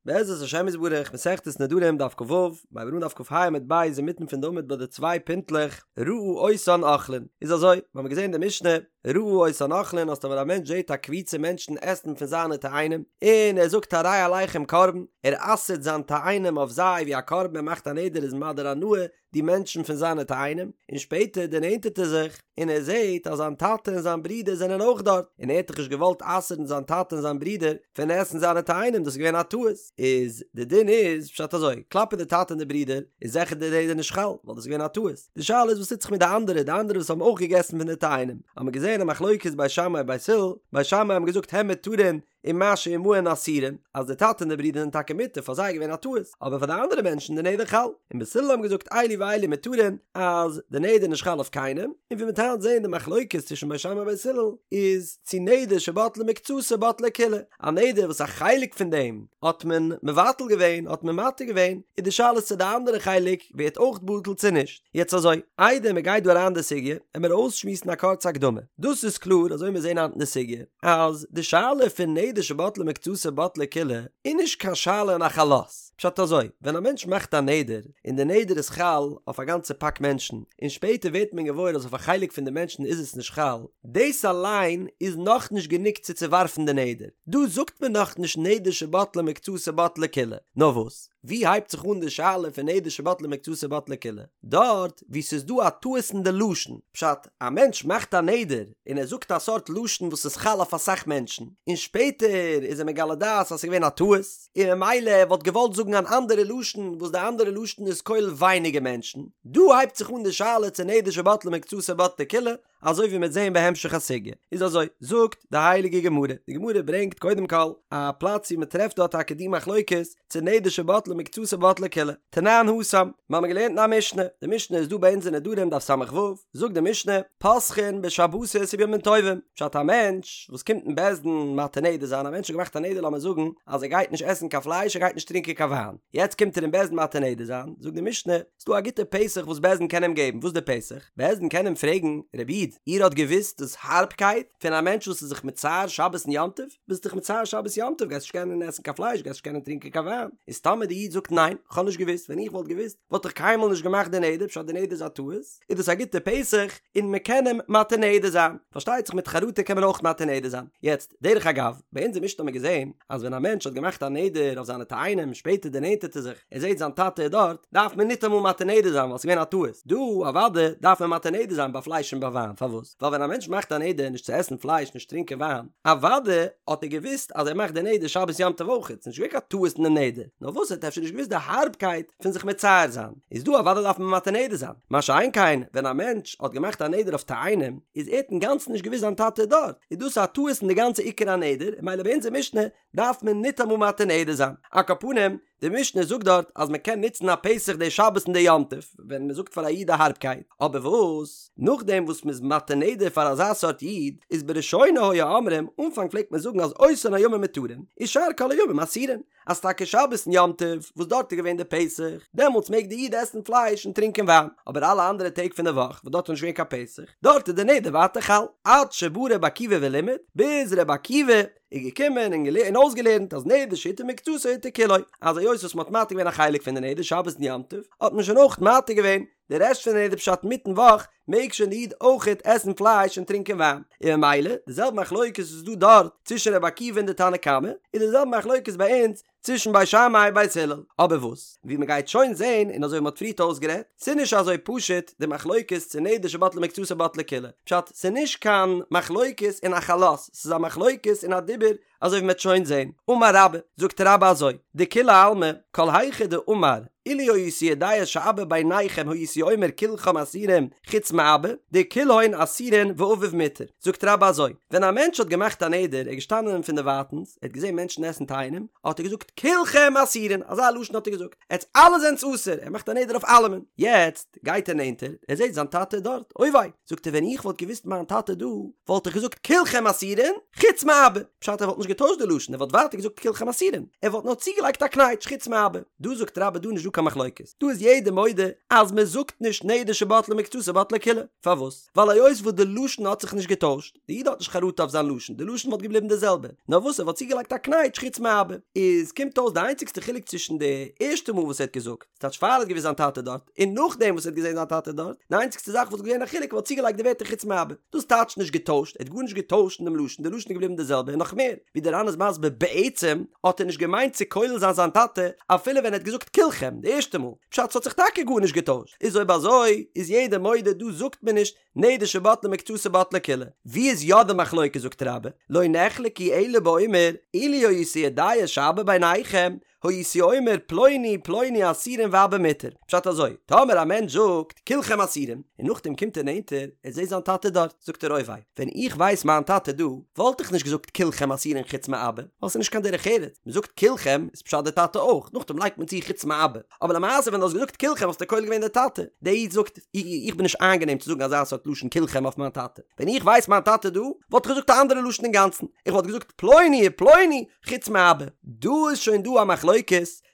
בעזרת השם יתברך, מסכת נדרים דף כ"ו, מ'הייבט אן דף כ"ה עמוד ב' אינמיטן פון די עמוד ביי די צוויי פינטלעך, ראה אותן אוכלין, איז אזוי, מיר האבן געזען די משנה, ראה אותן אוכלין אז טאמער א מענטש זעט א קבוצה מענטשן עסן פון זיינע תאנים, און ער זאגט הרי עליכם קרבן, ער אסר'ט זיין תאנים אויף זיי ווי א קרבן ער מאכט א נדר איז מדיר הנאה, די מענטשן פון זיינע תאנים, און שפעטער דערנענטערט ער זיך און ער זעט אז זיין טאטע און זיין ברודער זענען אויך דארט, און ער האט דאך נישט געוואלט אסר'ן זיין טאטע און זיין ברודער פון עסן זיינע תאנים, דאס איז געווען א טעות, איז די דין איז פשט אזוי, כלפי די טאטע און די ברודער איז זיכער די נדר נישט חל, ווייל דאס איז געווען א טעות, די שאלה איז וואס טוט זיך מיט די אנדערע, די אנדערע וואס האבן אויך געגעסן פון די תאנים, האט מען געזען א מחלוקת בית שמאי בית הלל, בית שמאי האבן געזאגט הן מותרין ומה שעמהן אסורין, אז די טאטע און די ברודער זענען טאקע מותר, פאר זיי איז געווען א טעות, אבער פאר די אנדערע מענטשן די נדר חל, און בית הלל האבן געזאגט אלו ואלו מותרין, אז די נדר איז נישט חל אויף קיינעם, און ווי מ'וועט היינט זען די מחלוקת צווישן בית שמאי און בית הלל איז צו נדר שבטלה מקצתו בטלה כולה, א נדר וואס א חלק פון דעם האט מען מבטל געווען האט מען מתיר געווען, איז די שאלה צו די אנדערע חלק ווערט אויך בטל צו נישט. יעצט אזוי, איידער מ'גייט דא אריין אין די סוגיא, עמער אויסשמועסן א קורצע הקדמה. דאס איז קלאר, אזוי מיר זעהן היינט אין די סוגיא, אז די שאלה פון נדר שבטלה מקצתו בטלה כולה, איז נישט קיין שאלה אין א חלות. פשט אזוי, ווען א מענטש מאכט א נדר, און די נדר איז חל אויף א גאנצע פאק מענטשן, און שפעטער ווערט מען געוואויר אז אויף א חלק פון די מענטשן איז עס נישט חל, דאס אליין איז נאכנישט גענוג צו צעווארפן די נדר. דא זאגט מען נאכנישט נדר שבטלה מקצתו בטלה כולה. נאר וואס? ווי הייבט זיך אן די שאלה פון נדר שבטלה מקצתו בטלה כולה? דארט וואו ס'איז דא א טעות אין די לשון, פשט, א מענטש מאכט א נדר און ער זאגט א סארט לשון וואס איז חל אויף אסאך מענטשן, און שפעטער איז ער מגלה דעת אז ס'איז געווען א טעות, און ממילא ער וואלט געוואלט זאגן אן אנדערע לשון וואס די אנדערע לשון איז כולל ווייניגער מענטשן, דא הייבט זיך אן די שאלה צו נדר שבטלה מקצתו בטלה כולה, אזוי ווי מ'וועט זעהן בהמשך הסוגיא. איז אזוי, זאגט די הייליגע גמרא, די גמרא ברענגט קודם כל א פלאץ ווי מ'טרעפט דארט טאקע די מחלוקת צו נדר שבטלה מקצתו בטלה כולה, תנן התם, מיר האבן געלערנט אין א משנה, די משנה איז דא ביי אונז אין נדרים דף ס"ו, זאגט די משנה, פותחין בשבתות ובימים טובים, פשט א מענטש וואס קומט אין בית דין מתיר נדר זיין, א מענטש האט געמאכט א נדר לאמיר זאגן אז ער גייט נישט עסן קיין פלייש ער גייט נישט טרינקען קיין וויין, יעצט קומט ער אין בית דין מתיר נדר זיין, זאגט די משנה, ס'דא א גוטע פתח וואס בית דין קען אים געבן, וואס איז די פתח? בית דין קען אים פרעגן, רבי איד, איר האט געוואוסט דאס הארבקייט פון א מענטש וואס איז זיך מצער שבת און יום טוב? ביסט דיך מצער שבת יום טוב, גייסט נישט קענען עסן קיין פלייש, גייסט נישט קענען טרינקען קיין וויין. איז טאמער די איד זאגט ניין, כ'האב נישט געוואוסט, ווען איך וואלט געוואוסט, וואלט איך קיינמאל נישט געמאכט די נדר, פשט די נדר איז א טעות, איז דאס א גוטע פתח און מען קען אים מתיר נדר זיין. פארשטייט זיך מיט חרטה קען מען אויך מתיר נדר זיין. יעצט, דרך אגב, ביי אונזער משנה האט מען געזען אז ווען א מענטש האט געמאכט א נדר אויף זיינע תאנים, שפעטער דערנענטערט ער זיך, ער זעט זיין טאטע איז דארט, דארף מען ניטאמאל מתיר נדר זיין ווייל ס'איז געווען א טעות. דא, אוודאי, דארף מען מתיר נדר זיין ביי פלייש און ביי וויין. פארוואס? ווייל ווען א מענטש מאכט א נדר נישט צו עסן פלייש נישט טרינקען וויין, אוודאי האט ער געוואוסט אז ער מאכט די נדר שבת יום טוב אויכעט, ס'איז נישט געווען קיין טעות אין די נדר, נאר וואס ער האט אפשר נישט געוואוסט די הארבקייט פון זיך מצער זיין, איז דא אוודאי דארף מען מתיר נדר זיין. מה שאין כן ווען א מענטש האט געמאכט א נדר אויף תאנים, איז ער האט אינגאנצן נישט געוואוסט זיין טאטע איז דארט, איז דאס א טעות אין די גאנצע עיקר הנדר, ממילא ביי אונזער משנה דארף מען ניטאמאל מתיר נדר זיין. על כל פנים, די משנה זאגט דארט אז מען קען נוצן א פתח די שבת און די יום טוב, ווען מען זאגט פאר א איד די הארבקייט, אבער וואס נאכדעם וואס מען איז מתיר נדר פאר אזא סארט איד, איז בראשונה היו אומרים, אנפאנג פלעגט מען זאגן אז אותן הימים מותרין, ושאר כל הימים אסורין, אז טאקע שבת און יום טוב וואס דארט איז געווען די פתח, דעמאלטס מעג די איד עסן פלייש און טרינקען וויין, אבער אלע אנדערע טעג פון די וואך וואס דארט איז נישט געווען קיין פתח, דארט איז די נדר ווייטער חל, עד שבא ר' עקיבא ולימד, ביז ר' עקיבא איז געקומען און און אויסגעלערנט אז נדר שהותר מקצתו הותר כולו, אז היות וואס מ'האט מתיר געווען א חלק פון די נדר שבת און יום טוב, האט מען שוין אויך מתיר געווען די רעשט פון די נדר פשט אינמיטן וואך מעג שוין די איד אויכעט עסן פלייש און טרינקען וויין, און ממילא די זעלבע מחלוקת וואס איז דא דארט צווישן רבי עקיבא און די תנא קמא, איז די זעלבע מחלוקת ביי אונז צווישן בית שמאי בית הלל, אבער וואס ווי מ'גייט שוין זעהן און אזוי ווי מ'האט פריערט אויסגערעדט, ס'איז נישט אזוי פשוט די מחלוקת צו נדר שבטלה מקצתו בטלה כולה, פשט ס'איז נישט קיין מחלוקת אין א חלות, ס'איז א מחלוקת אין א דיבור אזוי ווי מ'וועט שוין זעהן, אמר רבה, זאגט רבה אזוי, דכולי עלמא, כל היכא דאמר, אילו הייתי יודע שאבא ביניכם הייתי אומר כולכם אסורים חוץ מאבא, דכולהון אסורין ואביו מותר, זאגט רבה אזוי, ווען א מענטש האט געמאכט א נדר, ער איז געשטאנען פון דערווייטענס, ער האט געזעהן מענטשן עסן תאנים, האט ער געזאגט כולכם אסורין, אזא לשון האט ער געזאגט, עטס אלע זענטס אסור, ער מאכט א נדר אויף אלעמען, יעצט גייט ער נענטער, ער זעהט זיין טאטע איז דארט, אוי וויי, זאגט ער ווען איך וואלט געוואוסט מיין טאטע דא, וואלט איך געזאגט כולכם אסורין, חוץ מאבא, פשט ער וואלט נישט. נישט געטוישט די לשון, ער וואלט ווייטער געזאגט כולכם אסורים, ער וואלט נאר צוגעלייגט א קנייטש חוץ מאבא. דא זאגט רבה דא נישט דא קיין מחלוקת, דא איז יעדער מודה אז מען זאגט נישט נדר שבטלה מקצתו בטלה כולה, פארוואס? ווייל היות וואס די לשון האט זיך נישט געטוישט, די איד האט נישט חרטה אויף זיין לשון, די לשון וואלט געבליבן די זעלבע, נאר וואס ער וואלט צוגעלייגט א קנייטש חוץ מאבא. איז קומט אויס די איינציגסטע חילוק צווישן די ערשטע מאל וואס ער האט געזאגט, ס'טייטש פאר ער האט געוואוסט זיין טאטע דארט, און נאכדעם וואס ער האט געזען זיין טאטע דארט, די איינציגסטע זאך וואס איז געווען א חילוק ער וואלט צוגעלייגט די ווערטער חוץ מאבא. דאס טייטש נישט געטוישט, ער האט גארנישט געטוישט אין דעם לשון, די לשון איז געבליבן די זעלבע, און נאך מער, ווי דער ר"ן איז מסביר בעצם האט ער נישט געמיינט צו כולל זיין זיין טאטע אפילו ווען ער האט געזאגט כולכם די ערשטע מאל, פשט ס'האט זיך טאקע גארנישט געטוישט, איז אויב אזוי איז יעדער מודה דא זאגט מען נישט נדר שבטלה מקצתו בטלה כולה. ווי איז יא די מחלוקת זאגט רבה, לא נחלקו אלא באומר אילו הייתי יודע שאבא ביניכם הייתי אומר פלוני פלוני אסורין ואבא מותר. פשט אזוי, טאמער א מענטש זאגט כולכם אסורים, און נאכדעם קומט ער נענטער, ער זעט זיין טאטע דארט, זאגט ער אוי וויי, ווען איך ווייס מיין טאטע דא, וואלט איך נישט געזאגט כולכם אסורין חוץ מאבא, ווייל ס'איז נישט קיין דרך ארץ, מ'זאגט כולכם איז פשט די טאטע אויך, נאכדעם לייגט מען צו חוץ מאבא. אבער למעשה ווען דו האסט געזאגט כולכם האסטו כולל געווען די טאטע. דער איד זאגט, איך בין נישט איינגענעם צו זאגן אזא סארט לשון כולכם אויף מיין טאטע. ווען איך ווייס מיין טאטע דא, וואלט איך געזאגט א אנדערע לשון אינגאנצן. איך וואלט געזאגט פלוני ופלוני חוץ מאבא. דא איז שוין דא א מחלוקת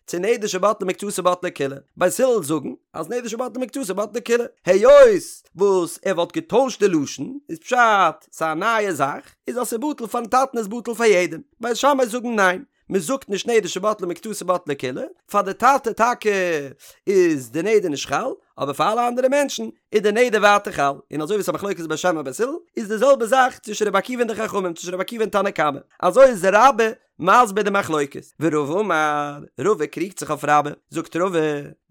צו נדר שבטלה מקצתו בטלה כולה. בית הלל זאגן אז נדר שבטלה מקצתו בטלה כולה. היות וואס ער וואלט געטוישט די לשון, איז פשט ס'איז א נייע זאך, איז אז ס'איז בטל פארן טאטן איז בטל פאר יעדעם. בית שמאי זאגן ניין. מען זאגט נישט נדר שבטלה מקצתו בטלה כולה, פאר די טאטע טאקע איז די נדר נישט חל, אבער פאר אלע אנדערע מענטשן איז די נדר ווייטער חל, און אזוי ווי עס איז א מחלוקת בית שמאי בית הלל, איז די זעלבע זאך צווישן רבי עקיבא און די חכמים, צווישן רבי עקיבא און תנא קמא, אזוי איז רבה מסביר די מחלוקת, ורבא אמר, רבא קריגט זיך אויף רבה, זאגט רבא,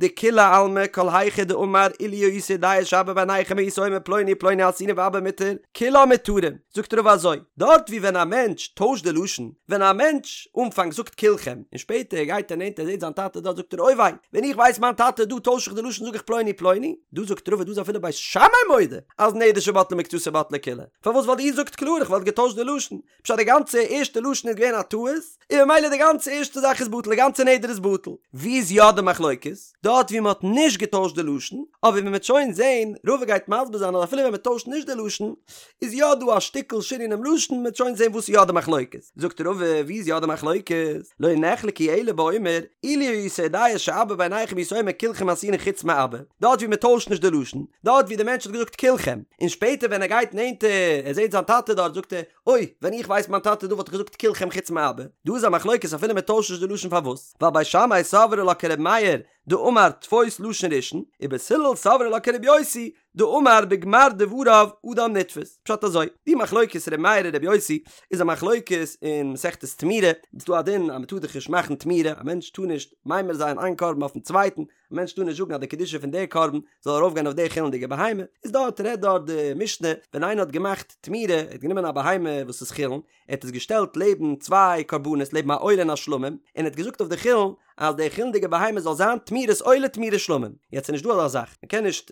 דכולי עלמא כל היכא דאמר אילו הייתי יודע שאבא ביניכם הייתי אומר פלוני ופלוני אסורין ואבא מותר, כולן מותרין, זאגט רבא אזוי, דארט ווי ווען א מענטש טוישט די לשון, ווען א מענטש אנפאנג זאגט כולכם, און שפעטער גייט ער נענטער זעט זיין טאטע דארט זאגט ער אוי וויי, ווען איך ווייס מיין טאטע דא טויש איך די לשון זאג איך פלוני פלוני, דא זאגט רבא דא איז אפילו בית שמאי מודה אז נדר שבטלה מקצתו בטלה כולה, פארוואס ווייל איר זאגט קלאר איך וואלט געטוישט די לשון, פשט די גאנצע ערשטע לשון איז געווען א טעות, און ממילא די גאנצע ערשטע זאך איז בטל די גאנצע נדר איז בטל. ווי איז יא די מחלוקת? דארט ווי מען האט נישט געטוישט די לשון, אבער ווי מען וועט שוין זעהן, רבא גייט מסביר זיין אז אפילו ווען מען טוישט נישט די לשון, איז יא דא א שטיקל שינוי אינעם לשון, מען וועט שוין זעהן וואס איז יא די מחלוקת. זאגט רבא, ווי איז יא די מחלוקת? לא נחלקו אלא באומר, אילו הייתי יודע שאבא ביניכם הייתי אומר כולכם אסורין חוץ מאבא, דארט ווי מען טוישט נישט די לשון, דארט ווי די מענטש האט געזאגט כולכם, און שפעטער ווען ער גייט נענטער, ער זעהט זיין טאטע דארט, זאגט ער, אוי, ווען איך ווייס מיין טאטע דא וואלט איך געזאגט כולכם חוץ מאבא. דא איז א מחלוקת אפילו מען טוישט נישט די לשון פארוואס? ווייל בית שמאי סברי לה כר' מאיר דאמר תפוס לשון ראשון, ובית הלל סברי לה כר' יוסי דאמר בגמר דבריו אדם נתפס. פשט אזוי, די מחלוקת ר' מאיר און ר' יוסי איז א מחלוקת אין מסכת תמורה, איז דא א דין אז מען טאר דאך נישט מאכן תמורה, א מענטש טאר נישט ממיר זיין איין קרבן אויפן צווייטן, א מענטש טאר נישט זאגן אז די קדושה פון די קרבן זאל ארויפגיין אויף די חולין'דיגע בהמה, איז דארט רעדט דארט די משנה ווען איינער האט געמאכט תמורה, ער האט גענומען א בהמה וואס איז חולין, ער האט עס געשטעלט לעבן צוויי קרבנות לעבן א עולה און א שלמים, און ער האט געזאגט אויף די חולין אז די חולין'דיגע בהמה זאל זיין תמורת עולה תמורת שלמים, יעצט איז נישט דא אזא זאך, מען קען נישט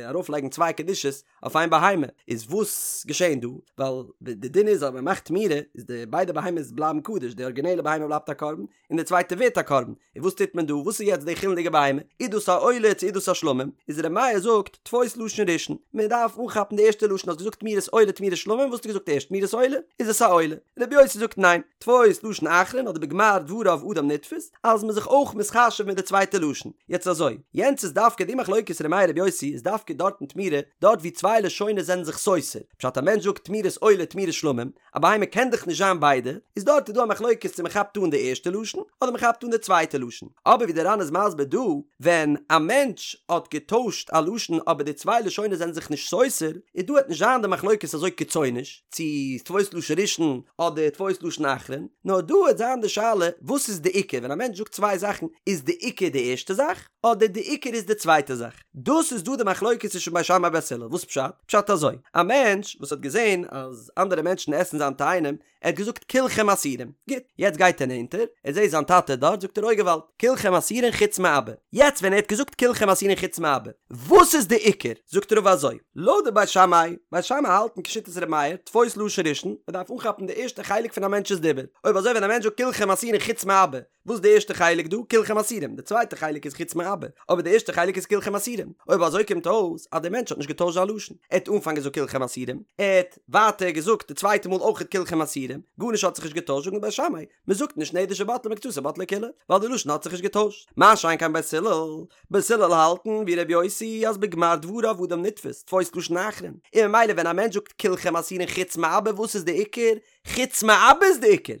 ארויפלייגן צוויי קדושות אויף איין בהמה, איז וואס געשען דא? ווייל די דין איז אז ווען מען מאכט תמורה איז די ביידע בהמות בלייבן קדוש, די ארגינעלע בהמה בלייבט א קרבן, און די צווייטע ווערט א קרבן, און וואס טוט מען דא? וואס איז יעצט די חולין'דיגע בהמה? איז דאס א עולה צו איז דאס א שלמים? איז ר' מאיר זאגט, תפוס לשון ראשון, מען דארף אנכאפן די ערשטע לשון, האסט געזאגט תמורת עולה תמורת שלמים, וואס האסטו געזאגט ערשט תמורת עולה? איז עס א עולה? ר' יוסי זאגט ניין, תפוס לשון אחרון אדער בגמר דבריו אדם נתפס, אז מ'איז זיך אויך מתחשב מיט די צווייטע לשון. יעצט אזוי, יענץ איז דווקא די מחלוקת ר' מאיר ר' יוסי איז דווקא דארט אין תמורה, דארט ווי צוויי לשונות זענען זיך סותר, פשט א מענטש זאגט תמורת עולה תמורת שלמים, א בהמה קען דאך נישט זיין ביידע, איז דארט איז דא א מחלוקת צו מען כאפט אן די ערשטע לשון אדער מען כאפט אן די צווייטע לשון, אבער ווי די ר"ן איז מסביר דא, ווען א מענטש האט געטוישט א לשון אבער די צוויי לשונות זענען זיך נישט סותר, איז דא וועט נישט זיין די מחלוקת אזוי קיצוניש, צו תפוס לשון ראשון אדער תפוס לשון אחרון, נאר דא וועט זיין די שאלה וואס איז די עיקר, ווען א מענטש זאגט צוויי זאכן איז די עיקר די ערשטע זאך אדער די עיקר איז די צווייטע זאך. דאס איז דא די מחלוקת צווישן בית שמאי בית הלל, וואס פשט? פשט אזוי, א מענטש וואס האט געזען אז אנדערע מענטשן עסן זיין תאנים, ער האט געזאגט כולכם אסורים, גוט, יעצט גייט ער נענטער, ער זעט זיין טאטע דארט, זאגט ער אוי געוואלד, כולכם אסורין חוץ מאבא, יעצט ווען ער האט געזאגט כולכם אסורין חוץ מאבא, וואס איז די עיקר? זאגט רבא אזוי, לויט די בית שמאי, בית שמאי האלטן כשיטת ר' מאיר, תפוס לשון ראשון, מען דארף אנכאפן די ערשטע חלק פון א מענטש'ס דיבור, אויב אזוי ווען א מענטש זאגט כולכם אסורין חוץ מאבא, וואס איז די ערשטע חלק דא? כולכם אסורים, די צווייטע חלק איז חוץ מאבא. מאבא, אבער די ערשטע חלק איז כולכם אסורים, אויב אזוי קומט אויס אז דער מענטש האט נישט געטוישט זיין לשון, ער האט אנפאנג געזאגט כולכם אסורים, ער האט ווייטער געזאגט די צווייטע מאל אויכעט כולכם אסורים, גארנישט האט זיך נישט געטוישט זאגן בית שמאי, מען זאגט נישט נדר שבטלה מקצתו בטלה כולה, ווייל די לשון האט זיך נישט געטוישט, מה שאין כן בית הלל, בית הלל האלטן ווי ר' יוסי אז בגמר דבריו אדם נתפס, תפוס לשון אחרון, און ממילא ווען א מענטש זאגט כולכם אסורין חוץ מאבא וואס איז די עיקר? חוץ מאבא איז די עיקר!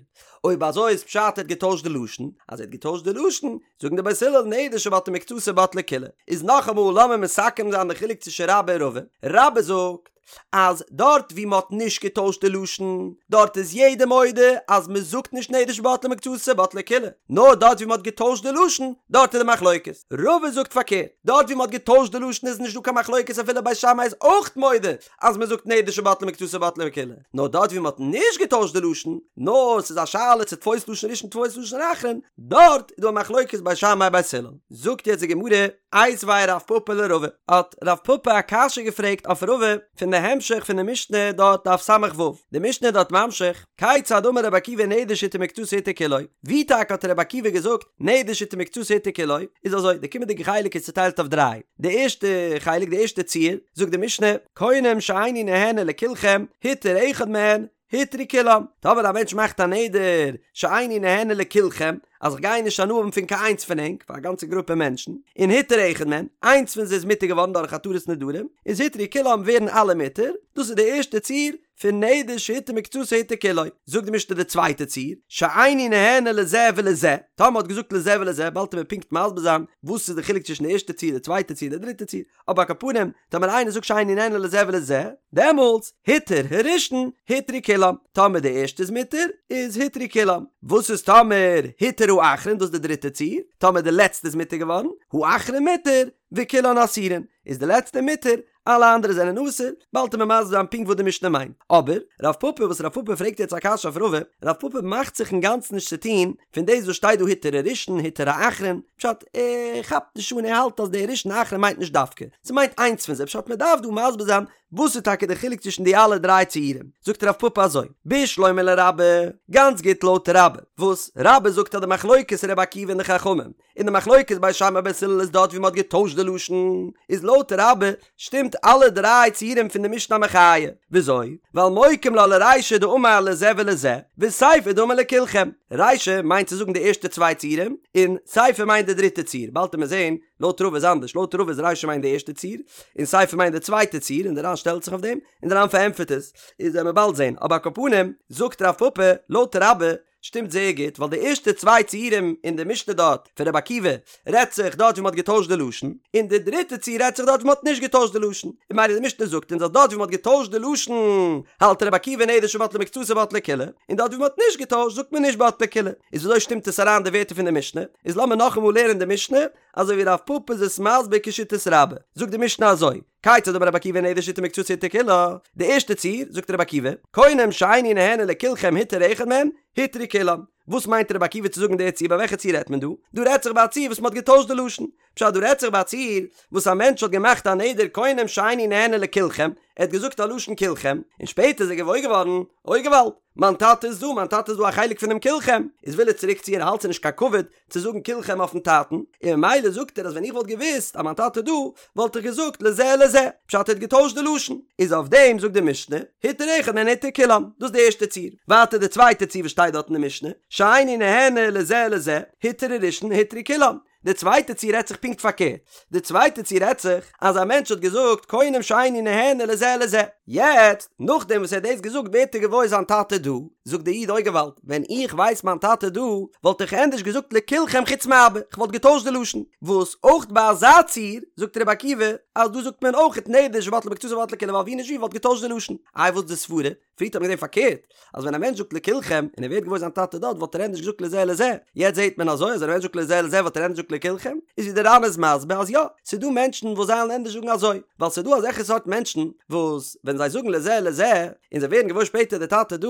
אויב אזוי איזפשט ער האט געטוישט די לשון, אז ער האט געטוישט די לשון, זאגן די בית הלל נדר שבטלה מקצתו בטלה כולה, איז נאכאמאל לאמיר מסכם זיין די חילוק צווישן רבה און רבא, רבה זאגט אז דארט ווי מ'האט נישט געטוישט די לשון, דארט איז יעדער מודה אז מ'זאגט נישט נדר שבטלה מקצתו בטלה כולה, נאר דארט ווי מ'האט געטוישט די לשון, דארט איז די מחלוקת. רבא זאגט פארקערט, דארט ווי מ'האט געטוישט די לשון איז נישט דא קיין מחלוקת אפילו בית שמאי איז אויך מודה אז מ'זאגט נדר שבטלה מקצתו בטלה כולה, נאר דארט ווי מ'האט נישט געטוישט די לשון, נאר ס'איז א שאלה צו תפוס לשון ראשון תפוס לשון אחרון, דארט איז דא א מחלוקת בית שמאי בית הלל. זאגט יעצט די גמרא, איתיביה רב פפא לרבא, האט רב פפא א קשיא געפרעגט אויף רבא פון די המשך פון די משנה דארט דף ס"ו, די משנה איז דארט ממשיך, כיצד אמר רבי עקיבא נדר שהותר מקצתו הותר כולו, ווי טאקע האט רבי עקיבא געזאגט נדר שהותר מקצתו הותר כולו, איז אזוי, די קומענדיגע חלק איז צוטיילט אויף דריי, די ערשטע חלק די ערשטע ציור, זאגט די משנה, קונם שאיני נהנה לכולכם, הותר אחד מהן, הותרו כולם, טאמער א מענטש מאכט א נדר שאיני נהנה לכולכם, אז איך גיי נישט הנאה האבן פון קיין איינס פון ענק, פאר א גאנצע גרופע מענטשן, און הותר אחד מהן, איינס פון זיי איז מותר געווארן דורך התרת נדרים, איז הותרו כולם ווערן אלע מותר, דאס איז די ערשטע ציור פון נדר שהותר מקצתו הותר כולו. זאגט די משנה די צווייטע ציור, שאיני נהנה לזה ולזה, טאמער מ'האט געזאגט לזה ולזה, באלד וועט מען פונקט מסביר זיין וואס איז די חילוק צווישן די ערשטע ציור, די צווייטע ציור, די דריטע ציור, אבער על כל פנים, טאמער איינער זאגט שאיני נהנה לזה ולזה, דעמאלטס, הותר הראשון, הותרו כולם. טאמער די ערשטע איז מותר, איז הותרו כולם. וואס איז טאמער הותר האחרון, דאס איז די דריטע ציור, טאמער די לעצטע איז מותר געווארן, האחרון מותר, וכולן אסורין, איז די לעצטע מותר, אלע אנדערע זענען אסור, באלד וועט מען מסביר זיין פונקט וואס די משנה מיינט. אבער, רב פפא וואס רב פפא פרעגט יעצט א קשיא אויף רבא, רב פפא מאכט זיך אינגאנצן נישט צו טון פון דאס וואס שטייט דא הותר הראשון הותר האחרון, פשט, ער כאפט נישט אן ער האלט אז דער ראשון אחרון מיינט נישט דווקא, ס'מיינט איינס פון זיי, פשט מ'דארף דא מסביר זיין וואס איז טאקע די חילוק צווישן די אלע דריי ציורים, זאגט רב פפא אזוי, בשלמא לרבה, גאנץ גוט לויט רבה, וואס רבה זאגט אז די מחלוקת רבי עקיבא און די חכמים, און די מחלוקת בית שמאי בית הלל איז דארט ווי מ'האט געטוישט די לשון, איז לויט רבה שטימט אלע דריי ציורים פון די משנה א מחיה. וויאזוי? ווייל מוקים לה לרישא דאמר לזה ולזה, וסיפא דאמר לכולכם. רישא מיינט צו זאגן די ערשטע צוויי ציורים, און סיפא מיינט די דריטע ציור. באלד וועט מען זען, לויט רבא איז אנדערש, לויט רבא איז רישא מיינט די ערשטע ציור, און סיפא מיינט די צווייטע ציור, און די ר"ן שטעלט זיך אויף דעם, און די ר"ן פארענטפערט עס, איז וועט מען באלד זען. אבער על כל פנים, זאגט רב פפא, לויט רבה, שטימט זייער גוט, ווייל די ערשטע צוויי ציורים אין די משנה דארט פון רבי עקיבא רעדט זיך דארט ווי מ'האט געטוישט די לשון, און די דריטע ציור רעדט זיך דארט ווי מ'האט נישט געטוישט די לשון, און ממילא די משנה זאגט אונז אז דארט ווי מ'האט געטוישט די לשון האלט רבי עקיבא נדר שבטלה מקצתו בטלה כולה, און דארט ווי מ'האט נישט געטוישט זאגט מען נישט בטלה כולה. איז וויאזוי שטימט עס אריין די ווערטער פון די משנה? איז לאמיר נאכאמאל לערנען די משנה אזוי ווי רב פפא איז עס מסביר כשיטת רבה. זאגט די משנה אזוי. כיצד אמר רבי עקיבא נדר שהותר מקצתו הותר כולה, די ערשטע ציור, זאגט רבי עקיבא, קונם שאיני נהנה לכולכם הותר אחד מהם, הותרו כולם. וואס מיינט רבי עקיבא צו זאגן די ציור ביי וועלכע ציור רעדט מען דא? דא רעדט זיך ביי א ציור וואס מען האט געטוישט די לשון. פשט דא רעדט זיך ביי א ציור וואס א מענטש האט געמאכט א נדר קונם שאיני נהנה לכולכם, ער האט געזאגט א לשון כולכם, און שפעטער איז ער געוואויר געווארן, אוי געוואלד, מיין טאטע איז דא, מיין טאטע איז דא א חלק פונעם כולכם, איז וויל ער צוריק ציען ער האלט ס'איז נישט קיין כבוד צו זאגן כולכם אויפן טאטן, און ממילא זאגט ער אז ווען איך וואלט געוואוסט אז מיין טאטע איז דא, וואלט איך געזאגט לזה לזה, פשט ער האט געטוישט די לשון, איז אויף דעם זאגט די משנה, הותר אחד מהן הותרו כולם, דאס איז די ערשטע ציור, ווייטער די צווייטע ציור וואס שטייט דארט אין די משנה, שאיני נהנה לזה לזה, הותר הראשון הותרו כולם, די צווייטע ציור רעדט זיך פונקט פארקערט, די צווייטע ציור רעדט זיך אז א מענטש האט געזאגט קונם שאיני נהנה לזה לזה, יעצט נאכדעם וואס ער האט דאס געזאגט ווערט ער געוואויר זיין טאטע דא, זאגט דער איד אוי געוואלד, ווען איך ווייס מיין טאטע דא וואלט איך ענדערש געזאגט לכולכם חוץ מאבא, איך וואלט געטוישט די לשון, וואס אויך ביי אזא ציור זאגט רבי עקיבא אז דא זאגט מען אויך נדר שבטלה מקצתו בטלה כולה ווייל ווי נישט ווי וואלט געטוישט די לשון, איי וואס די סברה? פריערט האט מען געזען פארקערט, אז ווען א מענטש זאגט לכולכם, און ער ווערט געוואויר זיין טאטע דארט, וואלט ער ענדערש געזאגט לזה לזה. יעצט זעט מען אזוי, אז ווען א מענטש זאגט לזה לזה וואלט ער ענדערש געזאגט לכולכם. איז ווי דער ר"ן איז מסביר אז יא, ס'איז דא מענטשן וואס זיי וועלן ענדערש זאגן אזוי, ווייל ס'איז דא אזעלכע סארט מענטשן, וואס ווען זיי זאגן לזה לזה, און זיי ווערן געוואויר שפעטער דער טאטע דא,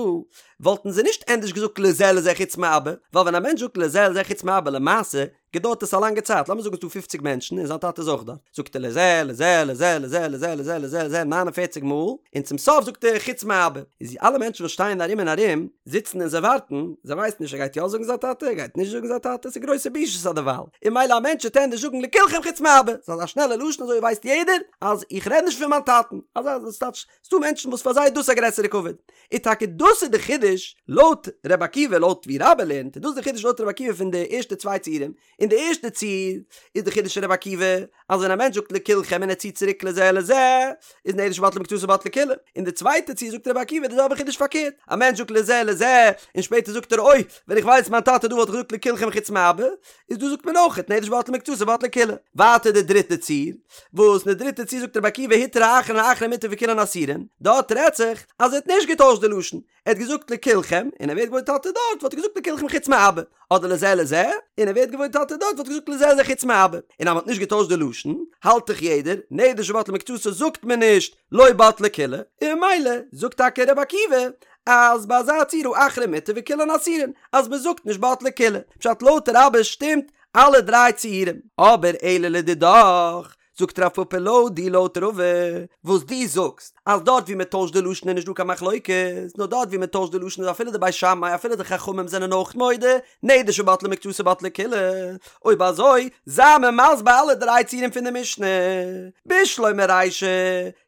וואלטן זיי נישט ענדערש געזאגט לזה לזה חוץ מאבא, ווייל ווען א מענטש זאגט לזה לזה חוץ מאבא למעשה, געדויערט עס א לאנגע צייט, לאמיר זאגן ס'איז דא פופציג מענטשן און זיין טאטע איז אויך דארט, זאגט ער לזה לזה לזה לזה לזה לזה לזה לזה 49 מאל, און צום סוף זאגט ער חוץ מאבא, איז אלע מענטשן וואס שטייען ארום און ארום זיצן און זיי ווארטן, זיי ווייסן נישט ער גייט יא זאגן זיין טאטע, ער גייט נישט זאגן זיין טאטע, ס'איז גרויסע בושות אדערווייל, און ממילא א מענטש וועט ענדערש זאגן לכולכם חוץ מאבא, ס'איז אזא שנעלע לשון אזוי ווייסט יעדער אז איך רעד נישט פון מיין טאטן, אזא ס'טייטש ס'דא מענטשן וואס פאר זיי איז דאס א גרעסערע כבוד. און טאקע דאס איז די חידוש לויט ר' עקיבא, לויט ווי רבה לערנט, איז דאס די חידוש לויט ר' עקיבא פון די ערשטע צוויי ציורים. אין די ערשטע ציור איז די חידוש פון ר' עקיבא אז ווען א מענטש זאגט לכולכם און ער ציט צוריק לזה לזה איז נדר שבטלה מקצתו בטלה כולה. אין די צווייטע ציור זאגט ר' עקיבא די זעלבע חידוש פארקערט, א מענטש זאגט לזה לזה און שפעטער זאגט ער אוי ווען איך ווייס מיין טאטע דא וואלט איך געזאגט לכולכם חוץ מאבא, איז דא זאגט מען אויכעט נדר שבטלה מקצתו בטלה כולה. ווייטער די דריטע ציור, וואס אין די דריטע ציור זאגט רבי עקיבא הותרה האחרון האחרון מותר וכולן אסורין, דארט רעדט זיך אז ער האט נישט געטוישט די לשון, ער האט געזאגט לכולכם, און ער ווערט געוואויר טאטע דארט וואלט ער געזאגט לכולכם חוץ מאבא, אדער לזה לזה, און ער ווערט געוואויר טאטע דארט וואלט ער געזאגט לזה לזה חוץ מאבא, און אז מען האט נישט געטוישט די לשון, האלט דאך יעדער, נדר שבטלה מקצתו זאגט מען נישט לא בטלה כולה, און ממילא זאגט טאקע רבי עקיבא אז ביי אזא ציור האחרון מותר וכולן אסורין, אז מען זאגט נישט בטלה כולה, פשט לויט רבה שטימט אלע דריי ציורים. אבער אלא לדידך, זאגט רב פפא לויט דיר לויט רבא, וואס דו זאגסט אז דארט ווי מען טוישט די לשון איז נישט דא קיין מחלוקת, נאר דארט ווי מען טוישט די לשון איז אפילו די בית שמאי אפילו די חכמים זענען אויך מודה, נדר שבטלה מקצתו בטלה כולה, אויב אזוי זיי מיר מסביר אלע דריי ציורים פון די משנה, בשלמא רישא,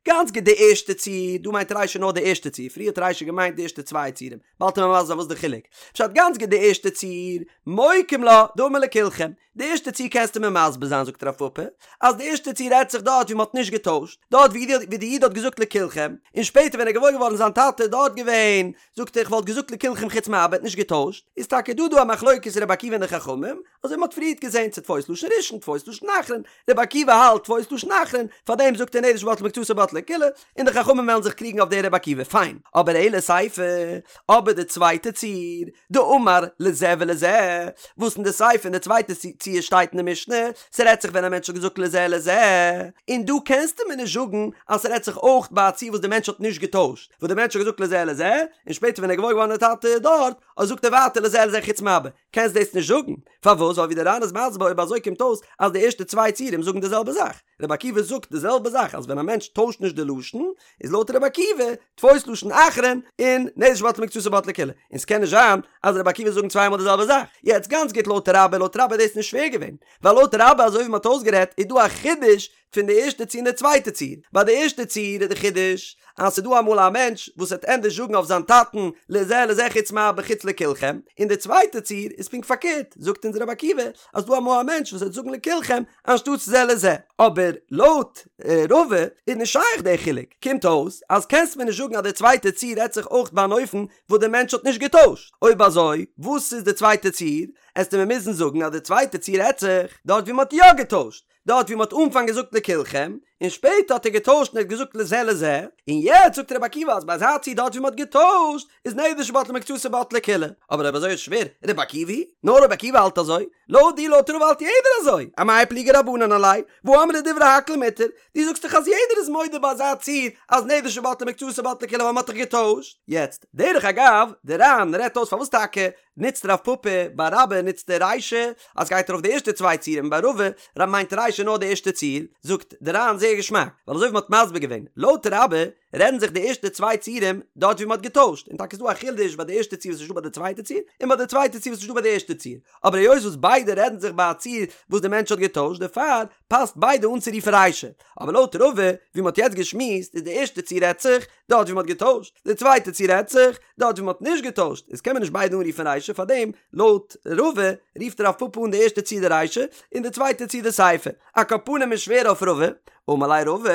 גאנץ גוט די ערשטע ציור, דא מיינט רישא נאר די ערשטע ציור, פריער האט רישא געמיינט די ערשטע צוויי ציורים, באלד וועט מען מסביר זיין וואס די חילוק. פשט גאנץ גוט די ערשטע ציור, מוקים לה, דאמר לכולכם. די ערשטע ציור קענסטו מיר מסביר זיין זאגט רב פפא, אז די ערשטע ציור רעדט זיך דארט ווי מען האט נישט געטוישט, דארט ווי די איד האט געזאגט לכולכם, און שפעטער ווען ער איז געוואויר געווארן זיין טאטע איז דארט געווען, זאגט ער איך וואלט געזאגט לכולכם חוץ מאבא האט נישט געטוישט, איז טאקע דא דא א מחלוקת רבי עקיבא און די חכמים, אזוי ווי מ'האט פריערט געזען צו תפוס לשון ראשון תפוס לשון אחרון, רבי עקיבא האלט תפוס לשון אחרון, פארדעם זאגט ער נדר שבטלה מקצתו בטלה כולה, און די חכמים וועלן זיך קריגן אויף די רבי עקיבא, פיין, אבער אלא סיפא, אבער די צווייטע ציור, דאמר לזה ולזה, וואס אין די סיפא אין די צווייטע ציור שטייט אין די משנה, ס'רעדט זיך ווען א מענטש האט געזאגט לזה לזה, און דא קענסטו מיר נישט זאגן אז ס'רעדט זיך אויך ביי א ציור וואס די מענטש האט נישט געטוישט, וואס די מענטש האט געזאגט לזה לזה, און שפעטער ווען ער איז געוואויר געווארן די טאטע איז דארט, אזוי זאגט ער ווייטער לזה לזה חוץ מאבא, קענסט דאס נישט זאגן, פארוואס? ווייל ווי דער ר"ן איז מסביר אויב אזוי קומט אויס אז די ערשטע צוויי ציורים זאגן די זעלבע זאך, רבי עקיבא זאגט די זעלבע זאך אז ווען א מענטש טוישט נישט די לשון איז לויט רבי עקיבא תפוס לשון אחרון און נדר שבטלה מקצתו בטלה כולה, און ס'קען נישט זיין אז רבי עקיבא זאגן צוויי מאל די זעלבע זאך, יעצט גאנץ גוט לויט רבה, לויט רבה איז דאס נישט שווער געווען, ווייל לויט רבה אזוי ווי מ'האט אויסגערעדט איז דא א חידוש פון די ערשטע ציור און די צווייטע ציור. ביי די ערשטע ציור איז די חידוש אז ס'איז דא אמאל א מענטש וואס וועט ענדערש זאגן אויף זיין טאטן לזה לזה חוץ מאבא חוץ לכולכם, און די צווייטע ציור איז פונקט פארקערט, זאגט אונז רבי עקיבא אז ס'דא אמאל א מענטש וואס וועט זאגן לכולכם אנשטאטס זה לזה. אבער לויט רבא איז נישט שייך די חילוק, קומט אויס אז קענסט מיר נישט זאגן אז די צווייטע ציור רעדט זיך אויך ביי אן אופן וואס די מענטש האט נישט געטוישט, אויב אזוי וואס איז די צווייטע ציור? עסטו מיר מוזן זאגן אז די צווייטע ציור רעדט זיך דארט ווי מ'האט יא געטוישט, דארט ווי מ'האט אנפאנג געזאגט לכולכם, און שפעטער האט ער געטוישט און ער האט געזאגט לזה לזה, און יעצט זאגט רבי עקיבא אז ביי אזא ציור דארט ווי מ'האט געטוישט איז נדר שבטלה מקצתו בטלה כולה. אבער אויב אזוי איז שווער, רבי עקיבא היא? נאר רבי עקיבא האלט אזוי? לויט דיר לויט רבא האלט יעדער אזוי, אמאי פליגי רבנן עליה, והא אמרי דברי הכל מותר, דו זאגסט דאך אז יעדער איז מודה ביי אזא ציור אז נדר שבטלה מקצתו בטלה כולה ווייל מ'האט דאך געטוישט. יעצט, דרך אגב, דער ר"ן רעדט אויס פארוואס טאקע נוצט רב פפא ביי רבה נוצט ער רישא אז גייט ארויף די ערשטע צוויי ציורים ביי רבא מיינט רישא נאר די ערשטע ציור, זאגט די ר"ן זייער געשמאק, ווייל אזוי ווי מ'האט מסביר געווען, לויט רבה רעדן זיך די ערשטע צוויי ציורים דארט ווי מ'האט געטוישט, און טאקע איז דא א חידוש ביי די ערשטע ציור וואס איז נישטא ביי די צווייטע ציור, און ביי די צווייטע ציור וואס איז נישטא ביי די ערשטע ציור, אבער היות וואס ביידע רעדן זיך ביי א ציור וואס די מענטש האט געטוישט דערפאר פאסט ביידע אנצורופן רישא, אבער לויט רבא ווי מ'האט יעצט געשמועסט איז די ערשטע ציור רעדט זיך דארט ווי מ'האט געטוישט, די צווייטע ציור רעדט זיך דארט ווי מ'האט נישט געטוישט, איז קען מען נישט ביידע אנרופן רישא, פארדעם לויט רבא רופט רב פפא אן די ערשטע ציור די רישא און די צווייטע ציור די סיפא. על כל פנים איז שווער אויף רבא, אמר ליה רבא,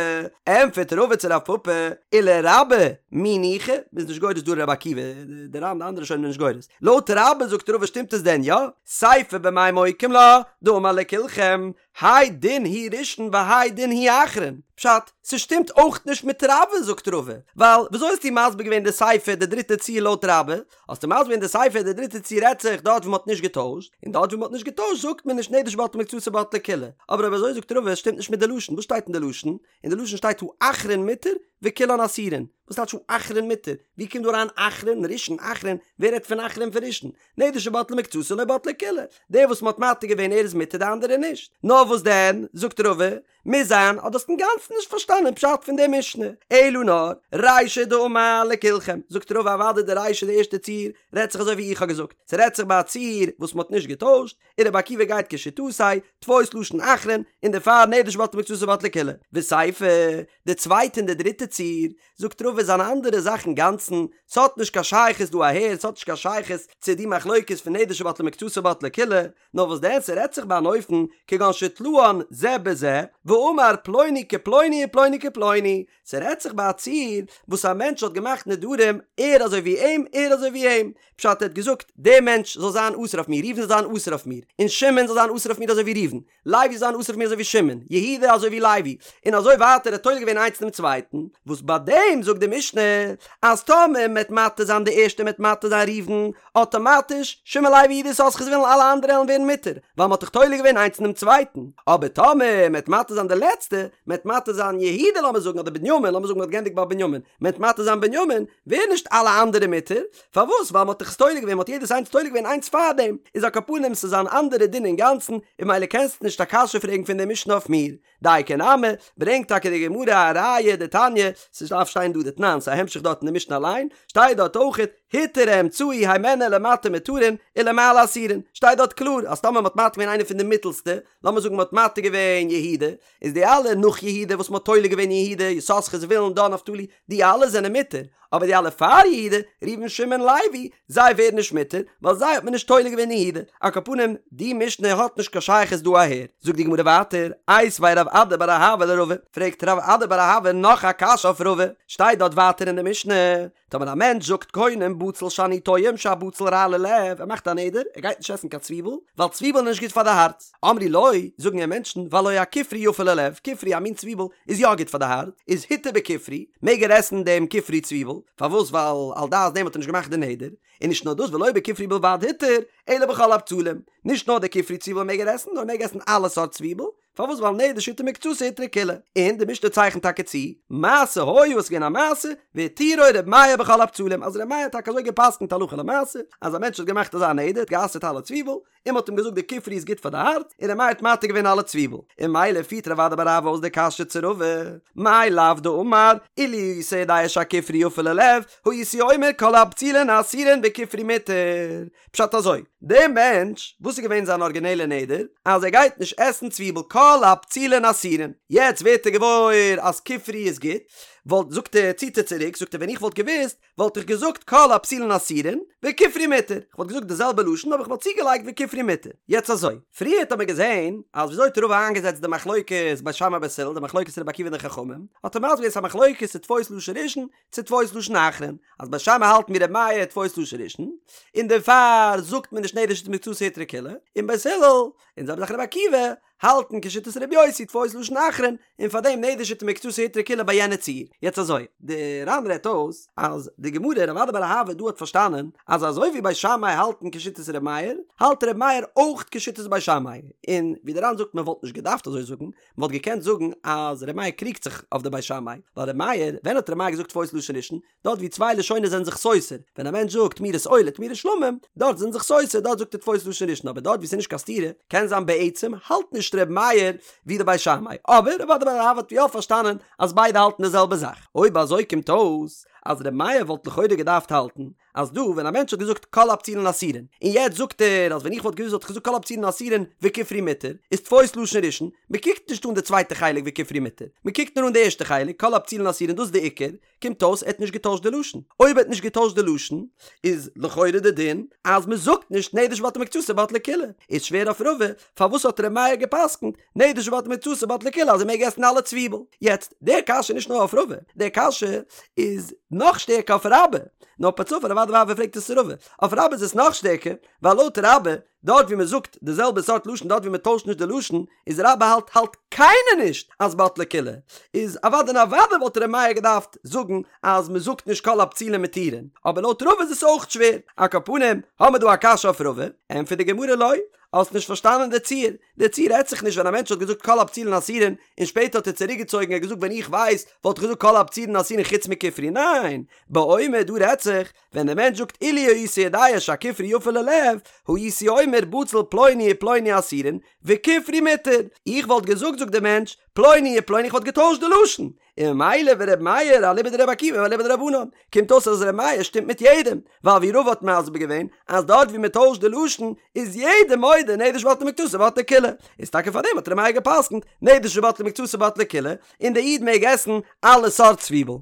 ענטפערט רבא צו רב פפא, ולרבה מי ניחא, מ'איז נישט גורס דא רבי עקיבא, די ר"ן די אנדערע ראשונים זענען נישט גורס, לויט רבה זאגט רבא שטימט עס דען יא? סיפא במאי מוקים לה, דאמר לכולכם, האי דין הוא ראשון והאי דין הוא אחרון, פשט, ס'שטימט אויך נישט מיט רבה זאגט רבא, ווייל וויאזוי האסטו מסביר געווען די סיפא די דריטע ציור לויט רבה, האסטו מסביר געווען די סיפא די דריטע ציור רעדט זיך דארט ווי מ'האט נישט געטוישט, און דארט ווי מ'האט נישט געטוישט זאגט מען נישט נדר שבטלה מקצתו בטלה כולה, אבער אויב אזוי זאגט רבא עס שטימט נישט מיט די לשון, וואס שטייט אין די לשון? אין די לשון שטייט האחרון מותר וכולן אסורין. וואס טייטש האחרון מותר? ווי קומט דא אריין אחרון, ראשון, אחרון, ווער רעדט פון אחרון פון ראשון? נדר שבטלה מקצתו לא בטלה כולה, דער וואס מ'האט מתיר געווען ער איז מותר די אנדערע נישט. נאר וואס דען, זאגט רבא, מוז זיין אז דו האסט אינגאנצן נישט פארשטאנען פשט פון די משנה, אלא נאר, רישא דאמר לכולכם, זאגט רבא אוודאי די רישא די ערשטע ציור רעדט זיך אזוי ווי איך האב געזאגט, ס'רעדט זיך ביי א ציור וואס מ'האט נישט געטוישט, און רבי עקיבא גייט כשיטתו, תפוס לשון אחרון, און דערפאר נדר שבטלה מקצתו בטלה כולה. וסיפא, די צווייטע און די דריטע ציור, זאגט רבא איז אן אנדערע זאך אינגאנצן, ס'האט נישט קיין שייכות דא אהער, ס'האט נישט קיין שייכות צו די מחלוקת פון נדר שבטלה מקצתו בטלה כולה, נאר וואס דען ס'רעדט זיך ביי אן אופן כגון שתלאן זה בזה, ואמר פלוני כפלוני ופלוני כפלוני, ס'רעדט זיך ביי א ציור וואס א מענטש האט געמאכט נדרים ער אזוי ווי אים ער אזוי ווי אים, פשט ער האט געזאגט דער מענטש זאל זיין אסור אויף מיר, ראובן זאל זיין אסור אויף מיר, און שמעון זאל זיין אסור אויף מיר אזוי ווי ראובן, לוי זאל זיין אסור אויף מיר אזוי ווי שמעון, יהודה אזוי ווי לוי, און אזוי ווייטער ער האט תולה געווען איינס אינעם צווייטן, וואס ביי דעם זאגט די משנה אז טאמער מ'עט מתיר זיין די ערשטע מ'עט מתיר זיין ראובן, אטאמאטיש שמעון לוי יהודה יששכר זבולון אלע אנדערע עלן ווערן מותר, ווייל מ'האט דאך תולה געווען איינס אינעם צווייטן, אבער טאמער מ'עט מתיר זיין די לעצטע, מ'עט מתיר זיין יהודה לאמיר זאגן אדער בנימין, לאמיר זאגן מ'האט געענדיגט ביי בנימין, מ'עט מתיר זיין בנימין, ווערן נישט אלע אנדערע מותר, פארוואס? ווייל מ'האט דאך עס תולה געווען, מ'האט יעדעס איינס תולה געווען איינס פארדעם, איז על כל פנים ס'איז אן אנדערע דין אינגאנצן, און ממילא קענסטו נישט א קשיא פרעגן פון די משנה אויף מיר. דייקא נמי, ברענגט טאקע די גמרא א ראיה דתניא, ס'דארף שטיין דא דתנן, ס'איז א המשך דארט אין די משנה אליין, שטייט דארט אויכעט, הותר האמצעי הימנו למטה מותרין ולמעלה אסורין, שטייט דארט קלאר אז טאמער מ'האט מתיר געווען איינער פון די מיטעלסטע, לאמיר זאגן מ'האט מתיר געווען יהודה, איז די אלע נאך יהודה וואס מ'האט תולה געווען יהודה, יששכר זבולון דן נפתלי, די אלע זענען מותר, אבער די אלע פאר יהודה, ראובן שמעון לוי, זיי ווערן נישט מותר, ווייל זיי האט מען נישט תולה געווען אין יהודה. על כל פנים, די משנה האט נישט קיין שייכות דא אהער. זאגט די גמרא ווייטער, איתיביה רב אדא בר אהבה לרבא, פרעגט רב אדא בר אהבה נאך א קשיא אויף רבא, שטייט דארט ווייטער אין די משנה, טאמער א מענטש זאגט קונם בצל שאני טועם שהבצל רע ללב, ער מאכט א נדר, ער גייט נישט עסן קיין צוויבל, ווייל צוויבל איז נישט גוט פאר די הארץ. אמרו לו, זאגן אים מענטשן, והלא הכופרי יפה ללב, כופרי א מין צוויבל איז יא גוט פאר די הארץ, איז הותר בכופרי, מעג ער עסן דעם כופרי צוויבל, פארוואס ווייל על דעת דעם האט ער נישט געמאכט די נדר, און נישט נאר דאס ולא בכופרי בלבד הותר, אלא בכל הבצלים, נישט נאר די כופרי צוויבל מעג ער עסן, נאר ער מעג עסן אלע סארט צוויבל, פארוואס ווייל נדר שהותר מקצתו הותרה כולה, און די משנה צייכנט טאקע צו, מעשה היה עס איז געווען א מעשה, והתירו ר' מאיר בכל הבצלים, אז ר' מאיר האט טאקע אזוי גע'פסק'נט הלכה למעשה, אז א מענטש האט געמאכט אזא נדר, האט גע'אסר'ט אלע צוויבל, און מ'האט אים געזאגט די כופרי איז גוט פאר די הארץ, און ר' מאיר האט מתיר געווען אלע צוויבל, און ממילא פירט רב אדא בר אהבה אויס די קשיא צו רבא, מאי לאו דאמר, אילו הייתי יודע שהכופרי יפה ללב, הייתי אומר כל הבצלין אסורין וכופרי מותר. פשט אזוי, דער מענטש, וואס איז געווען זיין ארגינעלע נדר? אז ער גייט נישט עסן צוויבל כל הבצלין אסורין, יעצט ווערט ער געוואויר אז כופרי איז גוט, וואלט, זאגט ער, ציט ער צוריק, זאגט ער ווען איך וואלט געוואוסט, וואלט איך געזאגט כל הבצלין אסורין וכופרי מותר, איך וואלט געזאגט די זעלבע לשון אבער איך וואלט צוגעלייגט וכופרי מותר. יעצט אזוי, פריערט האט מען געזען אז וויאזוי האט רבא איינגעזעצט די מחלוקת בית שמאי בית הלל, די מחלוקת רבי עקיבא און די חכמים, האט ער מסביר געווען ס'איז א מחלוקת צו תפוס לשון ראשון צו תפוס לשון אחרון, אז בית שמאי האלטן ווי רבי מאיר תפוס לשון ראשון, און דערפאר זאגט מען נישט נדר שהותר מקצתו הותרה כולה, און בית הלל, און זעלבע זאך רבי עקיבא, האלטן כשיטת רבי יוסי תפוס לשון אחרון, און פאר דעם נדר שהותר מקצתו הותרה כולה ביי יענע ציור. יעצט אזוי, די ר"ן רעדט אויס אז די גמרא רב אדא בר אהבה דא האט פארשטאנען אז אזוי ווי בית שמאי האלטן כשיטת רבי מאיר, האלט רבי מאיר אויך כשיטת בית שמאי, און ווי די ר"ן זאגט מען וואלט נישט געדארפט אזוי זאגן, מען וואלט געקענט זאגן אז רבי מאיר קריגט זיך אויף די בית שמאי, ווייל רבי מאיר, ווען האט רבי מאיר געזאגט תפוס לשון ראשון? דארט ווי צוויי לשונות זענען זיך סותר, ווען א מענטש זאגט תמורת עולה תמורת שלמים, דארט זענען זיך סותר, דארט זאגט ער תפוס לשון ראשון, אבער דארט ווי ס'איז נישט קיין סתירה, קען זיין בעצם האלט נישט ר' מאיר ווי די בית שמאי, אבער רב אדא בר אהבה האט יא פארשטאנען אז ביידע האלטן די זעלבע זאך. אויב אזוי קומט אויס אז ר' מאיר וואלט לכאורה געדארפט האלטן אז דא ווען א מענטש האט געזאגט כל הבצלין אסורין, און יעצט זאגט ער אז ווען איך וואלט געוואוסט וואלט איך געזאגט כל הבצלין אסורין וכופרי מותר, איז תפוס לשון ראשון, מ'קוקט נישט אן די צווייטע חלק וכופרי מותר, מ'קוקט נאר אן די ערשטע חלק כל הבצלין אסורין דאס איז די עיקר, קומט אויס ער האט נישט געטוישט די לשון, אויב ער האט נישט געטוישט די לשון איז לכאורה די דין אז מען זאגט נישט נדר שבטלה מקצתו בטלה כולה, איז שווער אויף רבא פארוואס האט ר' מאיר געפסקנט נדר שבטלה מקצתו בטלה כולה אז ער מעג עסן אלע צוויבל, יעצט די קשיא איז נישט נאר אויף רבא, די קשיא איז נאך שטערקער אויף רבה, נאר פער צופאל רב אדא בר אהבה פרעגט עס צו רבא, אויף רבה איז עס נאך שטערקער, ווייל לויט רבה דארט ווי מען זאגט די זעלבע סארט לשון דארט ווי מען טוישט נישט די לשון איז רבה האלט האלט. קיינער נישט אז בטלה כולה, איז אוודאי און אוודאי וואלט ר' מאיר געדארפט זאגן אז מען זאגט נישט כל הבצולין מותירין, אבער לויט רבא איז עס אויך שווער, על כל פנים האמיר דא א קשיא אויף רבא, ענטפערט די גמרא לא, האסט נישט פארשטאנען די ציור, די ציור רעדט זיך נישט ווען א מענטש האט געזאגט כל הבצולין אסורין און שפעטער האט ער צוריק געצויגן ער האט געזאגט ווען איך ווייס וואלט איך געזאגט כל הבצולין אסורין חוץ מכופרי, ניין, באומר דא רעדט זיך ווען דער מענטש זאגט אילו הייתי יודע שהכופרי יפה ללב, הייתי אומר בצל פלוני ופלוני אסורין, וכופרי מותר. איך וואלט געזאגט זאגט דער מענטש, פלוני ופלוני איך וואלט געטוישט די לשון. און ממילא ור' מאיר אליבא דרבי עקיבא ואליבא דרבנן. קומט אויס אז ר' מאיר שטימט מיט יעדעם, ווייל ווי רבא האט מסביר געווען, אז דארט ווי מען טוישט די לשון, איז יעדער מודה נדר שבטלה מקצתו בטלה כולה. איז טאקע פארדעם האט ר' מאיר גע'פסק'נט, נדר שבטלה מקצתו בטלה כולה, און דער איד מעג עסן אלע סארט צוויבל.